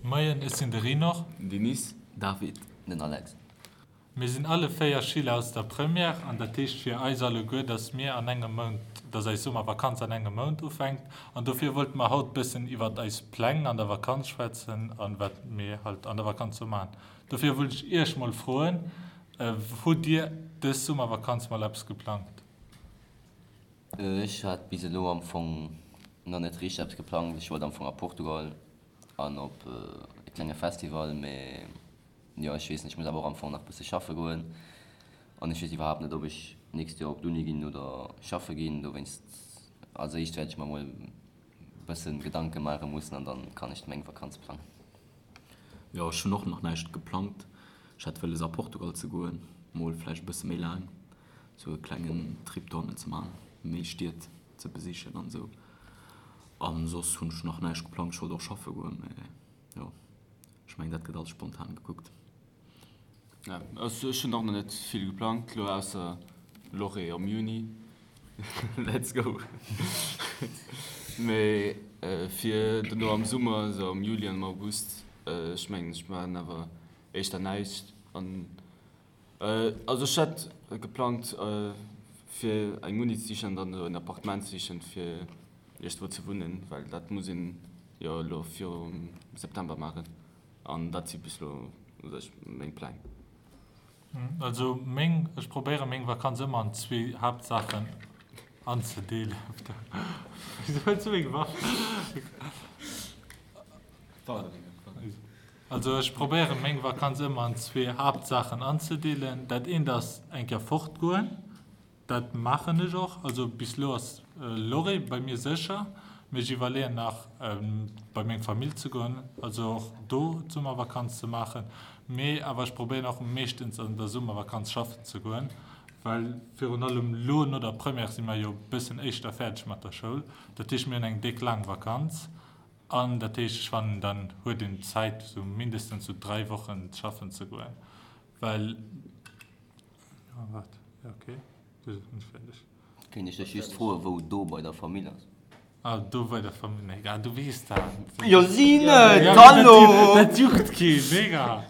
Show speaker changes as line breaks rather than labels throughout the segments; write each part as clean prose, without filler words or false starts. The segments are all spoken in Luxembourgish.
Moien, ech sinn de Rinor.
Denis.
David.
Den Alex.
Mir sinn alle 4 Schüler aus der Première an dat heescht fir eis alleguer, dass mir an engem Mount, dass eis Summervakanz an engem Mount ufänkt an dofir wollte mer haut bëssen iwwert eis Pläng an der Vakanz schwätzen an wat mir halt an der Vakanz sou maachen. Dofir wollt ech iech mol froen, hutt dir dës Summervakanz mol eppes geplangt?
Ech hat bis elo am Fong nach net richteg eppes geplangt. Ech wollt am Fong a Portugal an op e klenge Festival, mee jo ech weess net, ech muss awer och am Fong nach bësse schaffe goen an ech weess iwwerhaapt net ob ech d'nächst Joer op d'Uni ginn oder schaffe ginn. Dowéinst als éischt wäert ech mer mol bëssen Gedanke maache mussen an dann kann ech meng Vakanz plangen.
Jo ech hunn och nach näischt geplangt. Ech hat wëlles a Portugal ze goen, mol vläicht e bësse méi laang sou e klengen Trip dohannen ze man, méi Stied ze besichen an esou. An soss hunn ech nach näischt geplangt. Ech wollt och schaffe goen, mee jo ech mengen dat gëtt alles spontan gekuckt.
Ja, also ech hunn och nach net vill geplangt lo ausser Lorée am Juni. Let's go! Mee fir dono am Summer, esou am Juli an am August, ech mengen ech maachen awer éischter näischt an Also ech hätt geplangt fir eng Uni ze sichen an dann esou en Appartement ze sichen fir iergendwou ze wunnen, well dat muss een jo elo virum September maachen an dat si bis elo u sech meng Pläng.
Also meng, ech probéiere meng Vakanz ëmmer an zwee Haaptsaachen anzedeelen. Wisou hues du meng Waff? Also ech probéieren meng Vakanz ëmmer an zwee Haaptsaachen anzedeelen. Dat eent ass eng Kéier fortgoen, dat maachen ech och. Also bis elo ass Lorry bei mir sécher, mee ech iwwerleeën nach bei meng Famill ze goen, also och do d'Summervakanz ze maachen. Mee awer ech probéieren och meeschtens an der Summervakanz schaffen ze goen, well virun allem elo no der Première si mer jo e bëssen éischter fäerdeg mat der Schoul. Dat heescht mir hunn eng déck laang Vakanz. An dat heescht, ech fannen, dann huet een Zäit, esou mindestens esou 3 Wochen schaffen ze goen, well, oh waart, jo okay, du sinn ech fäerdeg.
Kéint ech dech just froen, wou do bei der Famill ass?
Ah, do bei der Famill, nee, ah, du weess dat.
Jo si net, hallo!
Dat juckt keen, mega!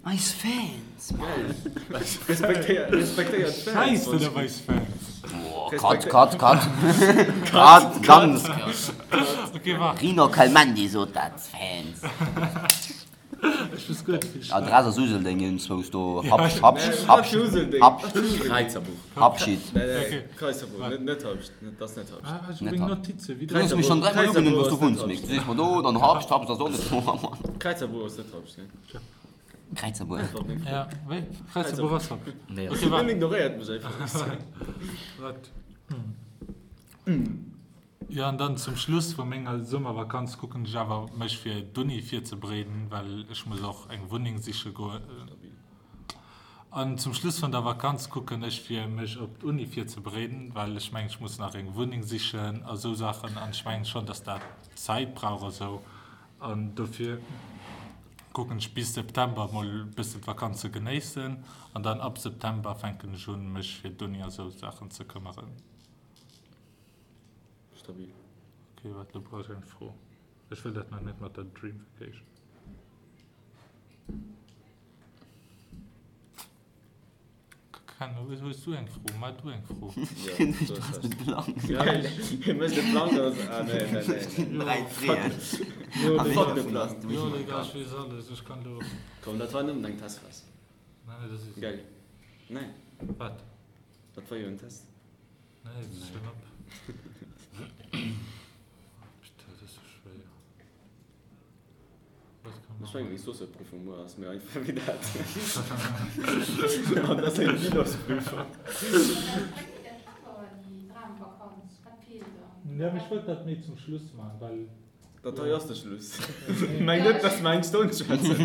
Eis Fans, Mann!
Respektéiert, respektéiert d'Fans.
Scheiss net op eis Fans.
Boah, cut, cut, cut. Cut, ganz cut.
Okay, waart.
Rino Kelmendi sot dat, Fans.
Ech wëss guer net wéi ech.
Adress ass Useldeng, iergendzwous do, Habscht, Habscht, Habscht, Habscht.
Kräizerbuch.
Habschied.
Nee, nee, Kräizerbuch, net, net Habscht, dat ass net Habscht.
Ah, ech hu meng Notizen
Du hues mech schonn dräimol ugenunnt, wou s du wunns, Mick. Du sees mer do, dann Habscht, Habscht ass och net do, Mann.
Kräizerbuch ass net Habscht, nee.
Kräizerbuer.
Ja, wéi? Kräizerbuer ass Habscht.
Nee,
Okay,
Hien
waart.
ignoréiert mech einfach.
Waart. Jo, an dann zum Schluss vu menger Summervakanz kucken ech awer mech fir d'Uni virzebereeden, well ech muss och eng Wunneng siche goen. An zum Schluss vun der Vakanz kucken ech fir mech op d'Uni virzebereeden, well ech mengen ech muss nach eng Wunneng sichen a sou Saachen an ech mengen schonn, dass dat Zäit brauch a sou. An dofir kucken ech bis September mol e bëssen d'Vakanz ze genéissen an dann ab September fänken ech un mech fir d'Uni a sou Saachen ze këmmeren.
Stabil.
Ok, waart, lo brauch ech eng Fro. Ech wëll dat nach net mat der Dream Vacation. Ken, hues du eng Fro? Mar du eng Fro.
Du has de Plang.
Hie mécht de Plang, dat ass. Ah, nee, nee, nee.
Dräi Freeën.
Fuck de Plang.
Jo, Digga, ech weess alles. Ech kann lo.
Komm, dat war nëmmen eng Testphas.
Nee, dat ass.
Gell? Nee.
Wat?
Dat war jo en Test.
Nee, dat ass schon op. Putain, dat ass sou schwéier. Wat kann
Ech
man
mengen, meng Sourceprüfung muer ass méi einfach wéi dat. An dat ass eng Bilansprüfung.
Ja, mee ech wollt dat méi zum Schluss man, well.
Dat hei ass de Schluss. Meng net, dass mer eng Stonn schwätzen.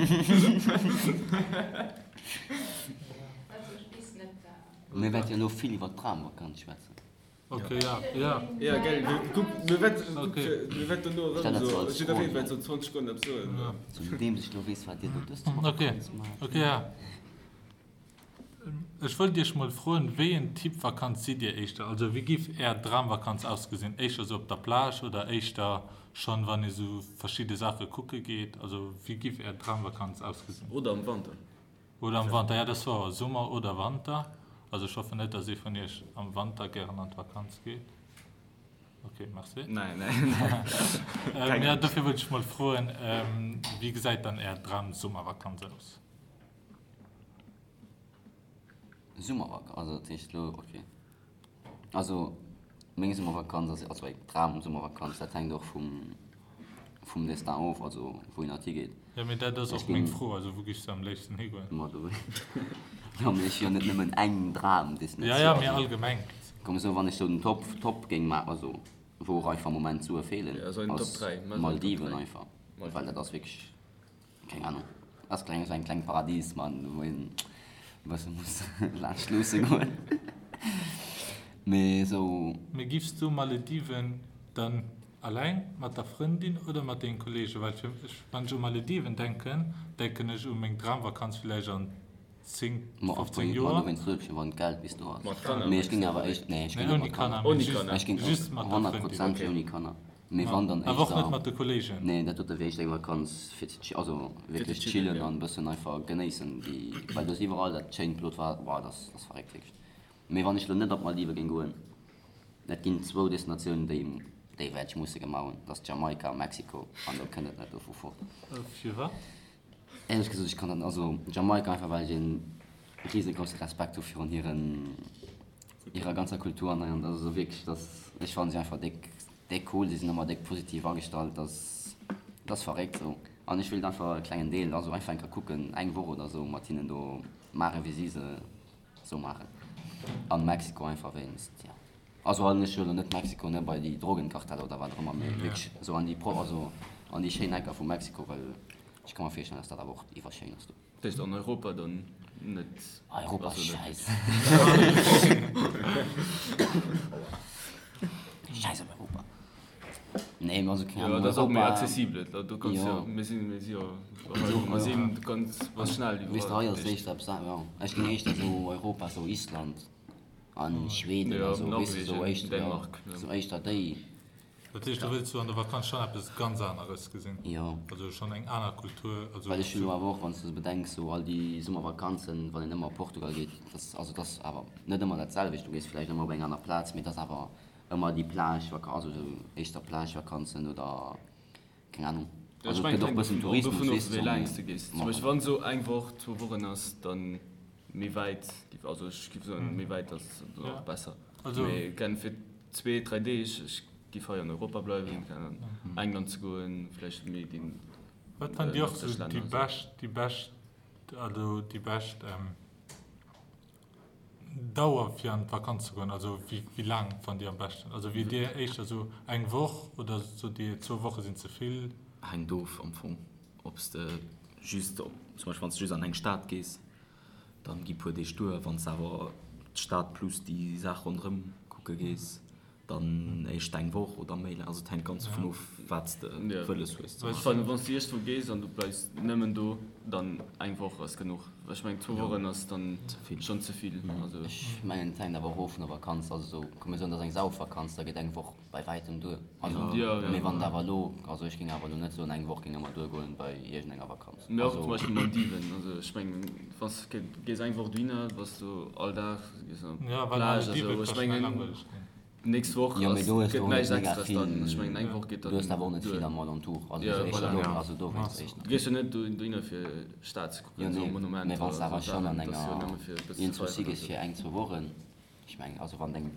Mir wäerte jo elo vill iwwer d'Dramvakanz schwätzen.
Ok, ja, ja.
Ja, gell, kuck, mir wäerten,
Ok.
mir wäerten dono erëm
Stell dat
esou,
sou als
jiddereen
Fro
wäert
hier.
sou 20 Sekonnen eppes soen.
Ja.
Zudeems ech elo weess, wat Dir do dës
Ok,
Vakanz maacht.
ok, ja. Ech wollt Iech mol froen, wéi en Typ Vakanz sidd Dir éischter? Also wéi giff Är Dramvakanz ausgesinn? Éischter sou op der Plage oder éischter. Schonn wann ee sou verschidde Saache kucke geet? Also wéi giff är Dramvakanz ausgesinn?
Oder am Wanter.
Oder am Wanter, ja dat ass wouer. Summer oder Wanter. Also ech hoffen net, dass ee vun iech am Wanter gären an d'Vakanz geet. Ok, merci.
Nein, nein.
Ähm, ja, dofir wollt ech mol froen, ähm, wéi gesäit dann är Dram-Summervakanz aus?
Summervakanz, also dat heescht elo, ok. Also meng Summervakanz ass, also eng Dram-Summervakanz, dat hänkt och vum, vum Destin of, also wou een halt higeet.
Jo, mee dat ass och meng Fro, also wou giffs de am léifsten higoen?
Ma do, jo, mee ech hu jo net nëmmen eng Dram-Destinatioun.
Ja, ja, mee allgemeng.
Komm esou, wann ech sou den Top, Top géing maachen, also wou och einfach am Moment Sue feelen, ass Maldiven einfach, well dat ass wierklech. Keng Ahnung. Ass kleng, esou eng kleng Paradies man, wou een e bësse muss laanscht luusse goen. Mee esou.
Mee giffs du Malediven dann alleng mat der Frëndin oder mat dengen Kollegen? Well fir mech, wann ech u Malediven denken, denken ech u meng Dramvakanz villäicht an 10, 15 Joer.
Ma dowéinst soot ech jo, wann d'Geld bis do ass. Mee ech géing awer éischt, nee ech géing net mat Kanner.
Ouni Kanner,
Ech géing
just mat der Frëndin.
100% ouni Kanner. Mee wann dann
Awer och net mat de Kollegen?
Nee, dat dote wier éischter eng Vakanz fir ze chi, also wierklech chillen an e bëssen einfach genéissen déi, well do ass iwwerall dat schéint blot Waasser, boah, dat ass, dat ass verréckt wierklech. Mee wann ech lo net op d'Maldive géing goen, et ginn zwou Destinatiounen déi, déi wäert ech musse gemaach hunn, dat ass Jamaika a Mexiko an do kënnt et net dovu fort.
Firwat?
Éierlech gesot, ech kann dat, also Jamaika einfach well ech een riesegrouse Respekt hu virun hiren, hirer ganzer Kultur an hei an also wierklech dass, ech fannen si einfach déck, déck cool, si sinn ëmmer déck positiv agestallt, dass, dat ass verréckt sou an ech wéilt einfach e klengen Deel, also einfach eng Kéier kucken, eng Woch oder sou mat hinnen do maachen wéi si se sou maachen an Mexiko einfach wéinst, jo. Also an ech huelen net Mexiko ne bei déi Drogenkarteller oder wat och ëmmer, mee wierklech esou an déi pro also an déi schéin Ecker vu Mexiko, well ech ka mer virstellen, dass dat awer och iwwerschéin ass do.
Dat heescht an Europa dann net?
Europa ass schäiss. Schäiss op Europa. Nee, mee also keng Ahnung,
Jo, dat ass och méi
Europa.
accessibel, do kanns jo, mir sinn, mir si jo hei, mir sinn, du kanns, bass schnell iwwerall.
Weess de, hei ass éischter eppes, jo, ech géing éischter esou Europa, esou Island. An Schweden
Ja,
a sou, weess de, sou
Norwegen,
éischter, ja,
Dänemark, ja.
sou éischter déi.
Dat heescht, du wëlls sou an der Vakanz schonn eppes ganz aneres gesinn?
Jo.
Also schonn eng aner Kultur, also.
Well ech hunn elo awer och, wann s de se bedenks, sou all déi Summervakanzen, wann een ëmmer op Portugal geet, dat ass, also dat ass awer net ëmmer dat selwecht, du gees vläicht ëmmer op eng aner Plaz, mee dat ass awer ëmmer déi Plage-Vakanz, also sou éischter Plage-Vakanzen oder. Keng Ahnung.
Also et gëtt och bëssen Tourismus, weess de, sou mee. Wann sou eng Woch, zwou Wochen ass, dann méi wäit, also ech giff soen méi wäit ass dann och besser. Mee kenn fir zwee, dräi Deeg, ech giff hei an Europa bleiwen, keng Ahnung, England ze goen, vläicht méi déi
Wat fannt Dir och sou déi bescht, déi bescht, also déi bescht Dauer fir an d'Vakanz ze goen, also wéi laang fannt Dir am beschten? Also wier Dir éischter sou eng Woch oder sot Dir zwou Woche sinn ze vill?
Hänkt of am Fong ob s de just, zum Beispill wann s de just an eng Stad gees, dann gi puer Deeg duer. Wann s de awer d'Stad plus déi Saach ronderëm kucke gees, Dann éischt eng Woch oder méi laang. Also et hänkt ganz dovun of, wat s de wëlles hues ze
maachen. Wann s de iergendwou gees an du bleifs nëmmen do, dann eng Woch ass genuch. Ech mengen zwou Wochen ass dann schonn ze vill.
Ech mengen et hänkt awer och of vun der Vakanz. Also sou, komm mir soen et ass eng Saufvakanz, da geet eng Woch bei wäitem duer. Also mee wann et awer elo, also ech géing awer elo net soen eng Woch géing ëmmer duergoen bei iergendenger Vakanz.
Mee och zum Beispill Maldiven, also ech mengen wann s de gees eng Woch dohinner, bass du all Dag gees op d'Plage a sou, ech mengen d'nächst Woch
Jo, mee do hues
gëtt
du och net
näischt
mega
Extras dann, ech
vill,
mengen eng Woch geet
du hues
dann
awer och net
duer.
vill am Alentour, also
Jo,
sou éischter
voilà.
do, also dowéinst éischter.
Du gees jo net dohinner fir Stad ze
Jo
kucken, sou
nee, mee
Monumenter
wann s de
a
awer
sou
schonn
Saachen,
an
dat ass jo
enger
nëmme fir e bësse ze
iergendwou si
feieren a
gees
sou.
fir eng, zwou Wochen, ech mengen, also wann et eng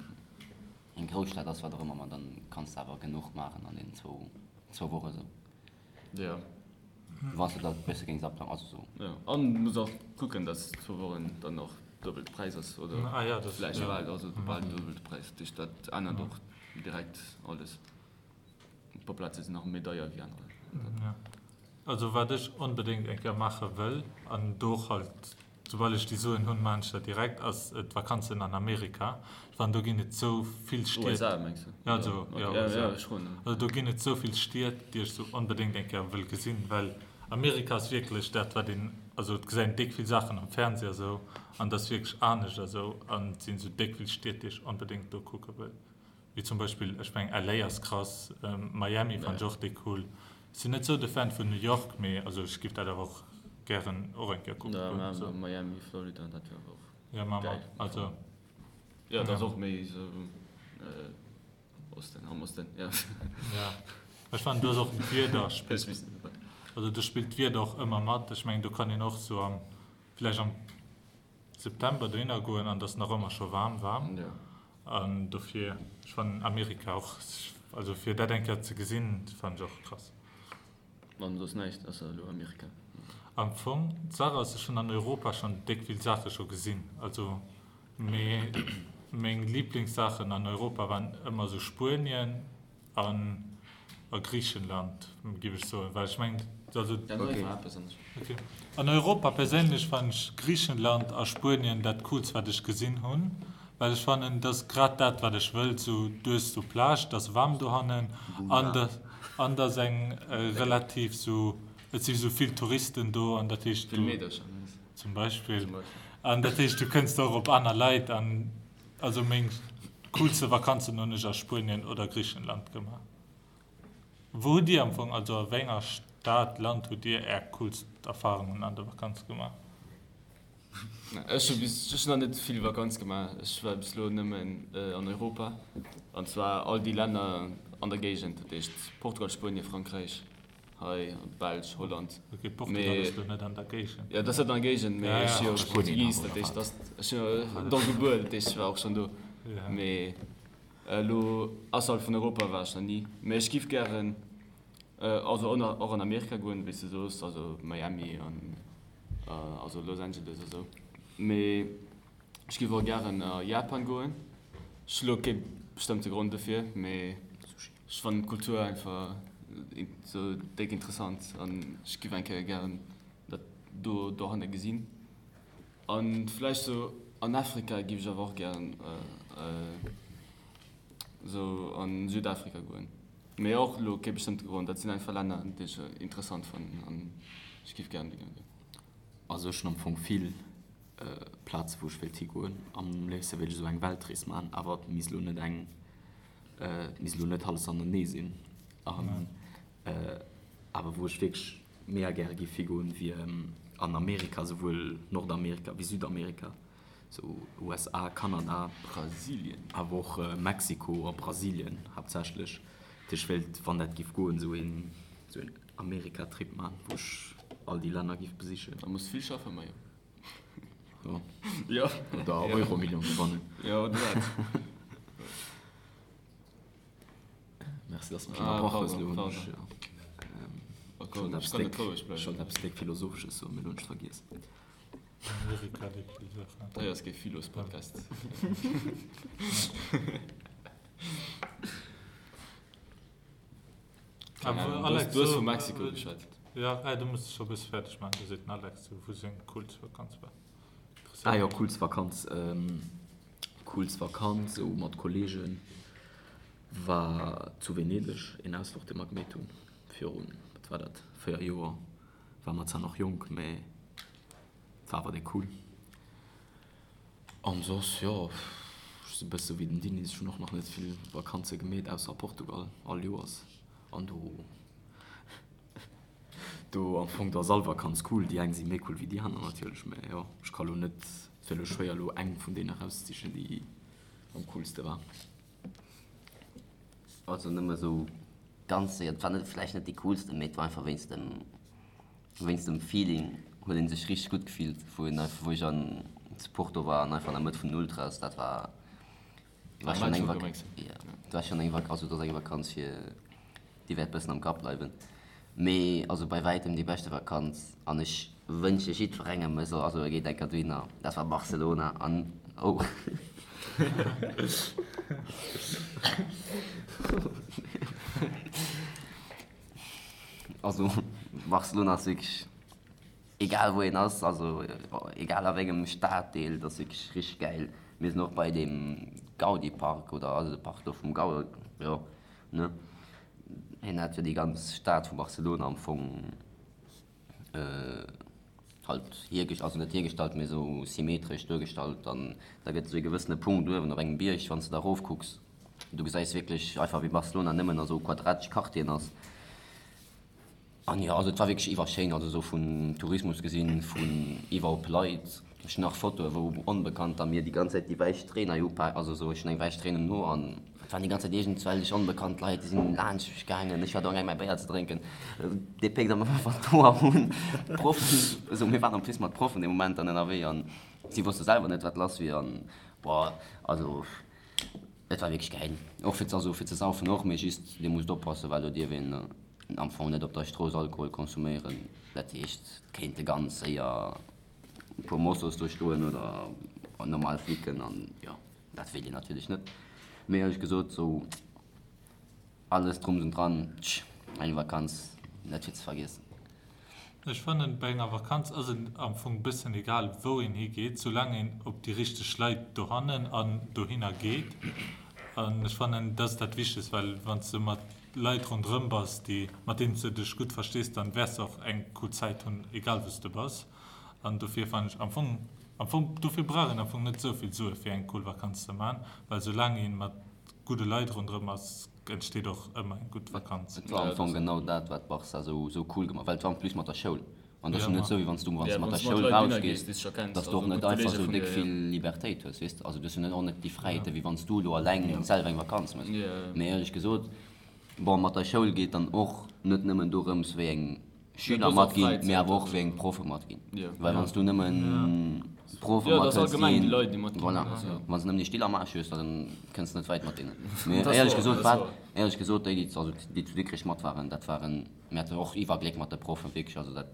eng Grousstad ass, wat och ëmmer, ma dann kanns de awer genuch maachen an deenen zwou zwou Woche sou.
Jo.
Wann s de dat e bësse géings aplangen, also sou.
Jo, an du muss och kucken, dass zwou Wochen dann och duebel de Präis ass, oder vläicht bal, also bal den duebelte Präis. Dat heescht, dat ännert och direkt alles. E puer Plaze sinn nach méi deier wéi anerer.
Jo. Also wat ech onbedéngt eng Kéier maache wëll, an do och halt Soubal ech déi Suen hunn, maan ech dat direkt, ass d'Vakanzen an Amerika. Ech fannen do ginn et sou vill Stied.
USA mengs du?
Ja, also, ja, USA. Also do ginn et sou vill Stied, déi ech sou onbedéngt eng Kéier wëll gesinn, well Amerika ass wierklech dat wat een, also et gesäit een déck vill Saachen am Fernseh a sou, an et ass wierklech anescht a sou, an et sinn sou déck vill Stied, déi ech onbedéngt do kucke wëll. Wéi zum Beispill, ech mengen LA ass krass, Miami fannen ech och déck cool. Sinn net sou de Fan vun New York, mee also ech giff dat awer och gären och eng Kéier kucke goen.
Ja, Miami, Florida, dat wär awer och
geil. Ja, ma ma also.
Jo, dat ass och méi sou Osten, am Osten, jo.
Ja, ech fannen do ass och d'Wieder spillt, also do spillt d'Wieder och ëmmer mat. Ech mengen do kann een och sou am, vläicht am September dohinner goen an et ass nach ëmmer scho waarm, waarm. An dofir, ech fannen Amerika och, also fir dat eng Kéier ze gesinn, fannen ech och krass.
An soss näischt ausser elo Amerika?
Am Fong, d'Saach ass, ech hunn an Europa schonn déck vill Saache scho gesinn, also, mee meng Liblingssaachen an Europa waren ëmmer esou Spuenien an a Griichenland, géif ech soen, well ech mengen, also. Ok. An Europa perséinlech fannen ech Griichenland a Spuenien dat coolst wat ech gesinn hunn, well ech fannen et ass grad dat wat ech wëll, sou du hues do Plage, et ass waarm dohannen an an et ass eng relativ sou, et si sou vill Touristen do an dat heescht du, zum Beispill, an dat heescht du kënns och op aner Leit an also meng coolste Vakanzen hunn ech a Spuenien oder Griichenland gemaach. Wou hutt Dir am Fong, also a wéi enger Stad, Land hutt Dir Är coolst Erfarungen an der Vakanz gemaach?
Ech hu bis, ech hunn nach net vill Vakanz gemaach. Ech war bis elo nëmmen an Europa, an zwar all déi Länner an der Géigend, dat heescht Portugal, Spuenien, Frankräich, hei Belsch, Holland.
Ok, Portugal ass elo net an der Géigend.
Jo, dat ass net an der Géigend, mee ech si jo Portugis, dat heescht, ech sinn jo do gebuer, dat heescht ech war och schonn do. Mee Elo ausserhalb vun Europa war ech nach ni, mee ech giff gären also och an Amerika goen, wéi s de soos, also Miami an also Los Angeles a sou. Mee ech giff och gären a Japan goen. Ech hu lo kee bestëmmte Grond dofir, mee ech fannen d'Kultur einfach sou déck interessant an ech giff eng Kéier gären dat do dohanne gesinn. An vläicht sou an Afrika giff ech awer och gären sou an Südafrika goen. Mee och lo kee bestëmmte Grond, dat sinn einfach Länner déi ech interessant fannen an ech giff gären dohinner goen.
Also ech hunn am Fong vill Plaze wou ech wéilt higoen. Am léifste wéilt ech esou eng Weltrees maachen, awer et misst elo net eng, et misst elo net alles anenee sinn. An awer wou ech wierklech Mega gäre giff higoen wier an Amerika, souwuel Nordamerika wéi Südamerika, sou USA, Kanada,
Brasilien,
awer och Mexiko a Brasilien haaptsächlech. Dat heescht ech wéilt, wann dat giff goen, sou een sou een Amerika-Trip man, wou ech all déi Länner giff besichen.
Da muss vill schaffen, Majo.
Jo. Jo. Oder Euromillion gewannen.
Jo, oder dat.
Merci, dass du mech ënnerbrach hues. Elo hunn ech ech wollt eppes déck Philosophesches soen, mee elo hunn ech et vergiess.
Hei ass kee Philos-Podcast. Du hues vu Mexiko geschwat.
Jo, du muss dech scho e bësse fäerdeg maachen, do seet den Alex, wou seng coolst Vakanz war.
Ah jo, coolst Vakanz. Coolst Vakanz esou mat Kollegen war zu Venedeg, een Ausfluch dee mer gemeet hunn virun, wat war dat, 4 Joer. War mer zwar nach jonk, mee war awer déck cool. An soss, jo, ech si bësse wéi den Denis, ech hunn och nach net vill Vakanze gemeet, ausser a Portugal all Joers an do. Do am Fong, do ass all Vakanz cool. Déi eng si méi cool wéi déi aner natierlech, mä jo, ech ka lo net, et wier lo schwéier elo eng vun deenen erauszesichen, déi am coolste war.
Also nëmme sou ganz séier, et war net vläicht net déi coolste, mee et war einfach wéinst dem, wéinst dem Feeling huet een sech richteg gutt gefillt, wou een einfach, wou ech an zu Porto war an einfach an der Mëtt vun den Ultras, dat war War schon eng Vakanz. Ja, war schon eng Vakanz, also dat ass eng Vakanz fir déi wäert bëssen am Kapp bleiwen. Mee also bei wäitem déi beschte Vakanz an ech wënsche jiddwerengem e soll, also e geet eng Kéier dohinner, dat war Barcelona an oh. Also Barcelona ass wierklech. Egal wou een ass, also egal a wéngem Staddeel, dat ass wierklech richteg gäil. Mir sinn och bei deem Gaudi Park oder also de Park do vum Gaudi, jo ne, hien hat jo déi ganz Stad vu Barcelona am Fong halt hiergest-, also net hiergestallt, mee esou symmetresch duergestallt an da gëtt esou ee gewëssene Punkt uewen op engem Bierg, wann s de da erofkucks. Du gesäis wierklech einfach wéi Barcelona nëmmen a sou quadratesch Quartieren ass. An jo, also et war wierklech iwwerschéin, also sou vun Tourismus gesinn, vun iwwer op Leit. Ech hunn nach Fotoe wou Onbekannter mir déi ganz Zäit déi wäiss Stréin hei upaken, also sou ech hunn eng wäiss Stréin um Ho an et waren déi ganz Zäit iergendwellech onbekannt Leit, déi sinn laanscht mech gaangen. Ech war do amgaang mäi Béier ze drénken, dee péckt am einfach d'Hoer un. D'Proffen, esou mir waren en plus mat Proffen dee Moment dann ënnerwee an si wosste selwer net wat lass wier an boah, also et war wierklech gäil. Och fir, also fir ze saufen och, mee just dir musst oppassen, well do dierf een am Fong net op der Strooss Alkohol konsuméieren. Dat heescht, et kéinte ganz séier e puer Mossos do stoen oder normal Flicken an jo, dat wéilt een natierlech net. Mee éierlech gesot, sou alles drums und dran, tsch, eng Vakanz net fir ze vergiessen.
Ech fannen bei enger Vakanz ass et am Fong bëssen egal wou een higeet, soulaang een op déi richteg Leit dohannen an dohinner geet. An ech fannen dat ass dat Wichtegst, well wann s de mat Leit ronderëm bass, déi, mat deenen s de dech gutt verstees, dann wäers de och eng cool Zäit hunn, egal wou s de bass. An dofir fannen ech am Fong, am Fong, dofir brauch een am Fong net esou vill Sue fir eng cool Vakanz ze man, well soulaang een mat gudde Leit ronderëm ass, entsteet och ëmmer eng gutt Vakanz.
Et war am Fong genau dat, wat Barca esou, esou cool gemaach, well et war en plus mat der Schoul. An dat ass jo net esou, wéi wann s du, wann s du mat der Schoul rausgees, dass du och net einfach esou déck vill Libertéit hues, weess de. Also du hues jo net och net déi Fräiheeten, wéi wann s du elo alleng selwer eng Vakanz méchs. Mee éierlech gesot, bon, mat der Schoul geet dann och net nëmmen dorëms, wéi eng Schüler matginn, mee awer och wéi eng Proffe matginn. Well wann s du nëmmen Proffe mathëls, déi, voilà, wann s du nëmmen déi Still am Aarsch hues, da kënns de net wäit mat deenen. Mee éierlech gesot, wat, éierlech gesot, déi, déi, also déi zu Dikrech mat waren, dat waren, Mir haten och iwwer Gléck mat de Proffen, wierklech, also dat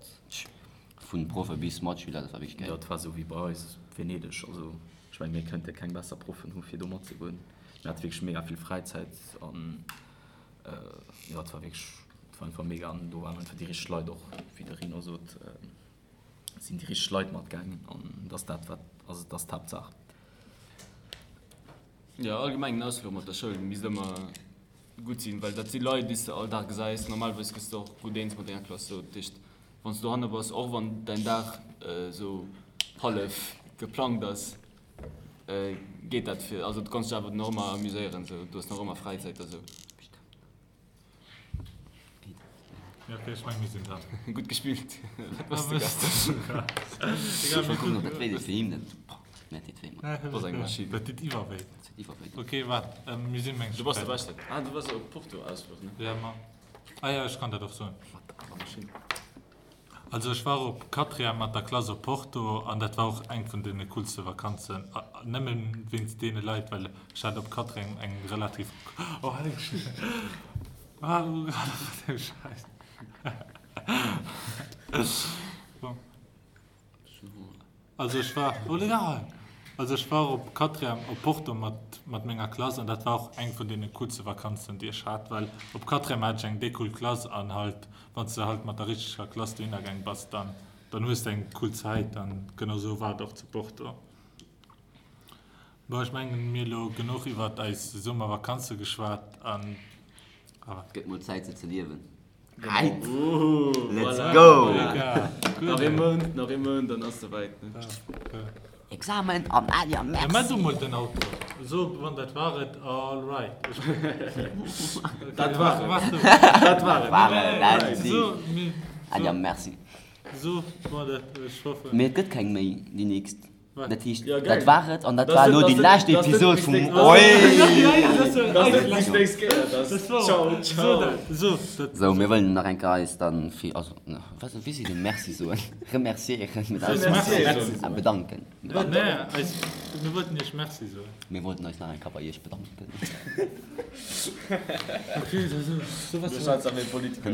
vun Proffe bis Matschüler, dat war wierklech
gäil. Jo, et war esou wéi bei eis Venedeg, also ech mengen mir kënnte keng besser Proffen hu fir do matzegoen. Mir hate wierklech mega vill Fräizäit an jo, et war wierklech, et war einfach mega an do waren einfach déi richteg Leit och, wéi de Rino sot, sinn déi richteg Leit matgaangen an et ass dat wat, also et ass d'Haaptsaach.
Jo, allgemeng en Ausfluch mat der Schoul misst ëmmer gutt sinn, well dat si Leit, déi s de all Dag gesäis. Normalerweis gëss de och gutt eens mat denger Klass. Sou, dat heescht, wann s de dohanne bass, och wann däin Dag sou hallef geplangt ass, geet dat fir, also du kanns dech awer nach ëmmer amuséieren, sou, du hues nach ëmmer Fräizäit a sou.
Ja, okay, ech meng mir sinn dran.
Gutt gespillt.
Dat eng Maschinn. Dat deet iwwer wéi. Okay, waart, mir sinn meng.
Du bass de Beschten. Ah, du bass op Porto Ausfluch, ne?
Ja, ma. Ah ja, ech kann dat och soen. Also ech war op Quatrième mat der Klass op Porto an dat war och eng vun deene coolste Vakanzen, nëmmen wéinst deene Leit, well ech hat op Quatrième eng relativ, oh helleg Scheiss, bon. Also ech war, oh legal! Also ech war op Quatrième op Porto mat mat menger Klass an dat war och eng vun deene coolste Vakanzen déi ech hat, well op Quatrième hat ech eng déi cool Klass an halt wann s de halt mat der richteger Klass dohinner gaang bass, dann dann hues de eng cool Zäit an genau sou war et och zu Porto. Bon ech mengen mir elo genuch iwwert eis Summervakanze geschwat an.
Et gëtt mol Zäit se ze liewen. Right! Let's go!
Nach ee Mount, nach ee Mount, dann ass souwäit.
Examen an Alia, merci!
Ja, mä du mol den Auto. So, wann dat war et, all right.
Dat war et. Dat war
et. Alia, merci.
So, wann dat, ech hoffen.
Mee et gëtt keng méi, déi nächst. Dat heescht,
Ja, geil.
dat war et an dat
Das
war
net-
elo déi
das net-
lescht
das net
Episod
bis
vum
nächst-
Oi!
Das net bis nächst Kéier, das Ciao, ciao.
So, dat.
Sou, mir wëllen nach eng Kéier eis dann fir, also, wat, wéi seet een Merci soen? Remerciéieren mit eis.
Merci
Ah, bedanken. Bedanken.
Nee, eis, mir wollten iech Merci soen.
Mir wollten eis nach eng Kéier bei iech bedanken.
Okay, so, so, was.
Du schwätz awer méi Politiker.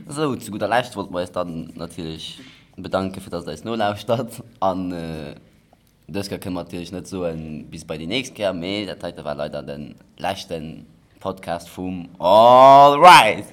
Sou, zu gudder Lescht wollte mer eis dann natierlech Bedanken fir dass der eis nolauschtert an dës Kéier kënne mer natierlech net soen bis bei déi nächst Kéier, mee dat heite war leider den leschten Podcast vum All Right!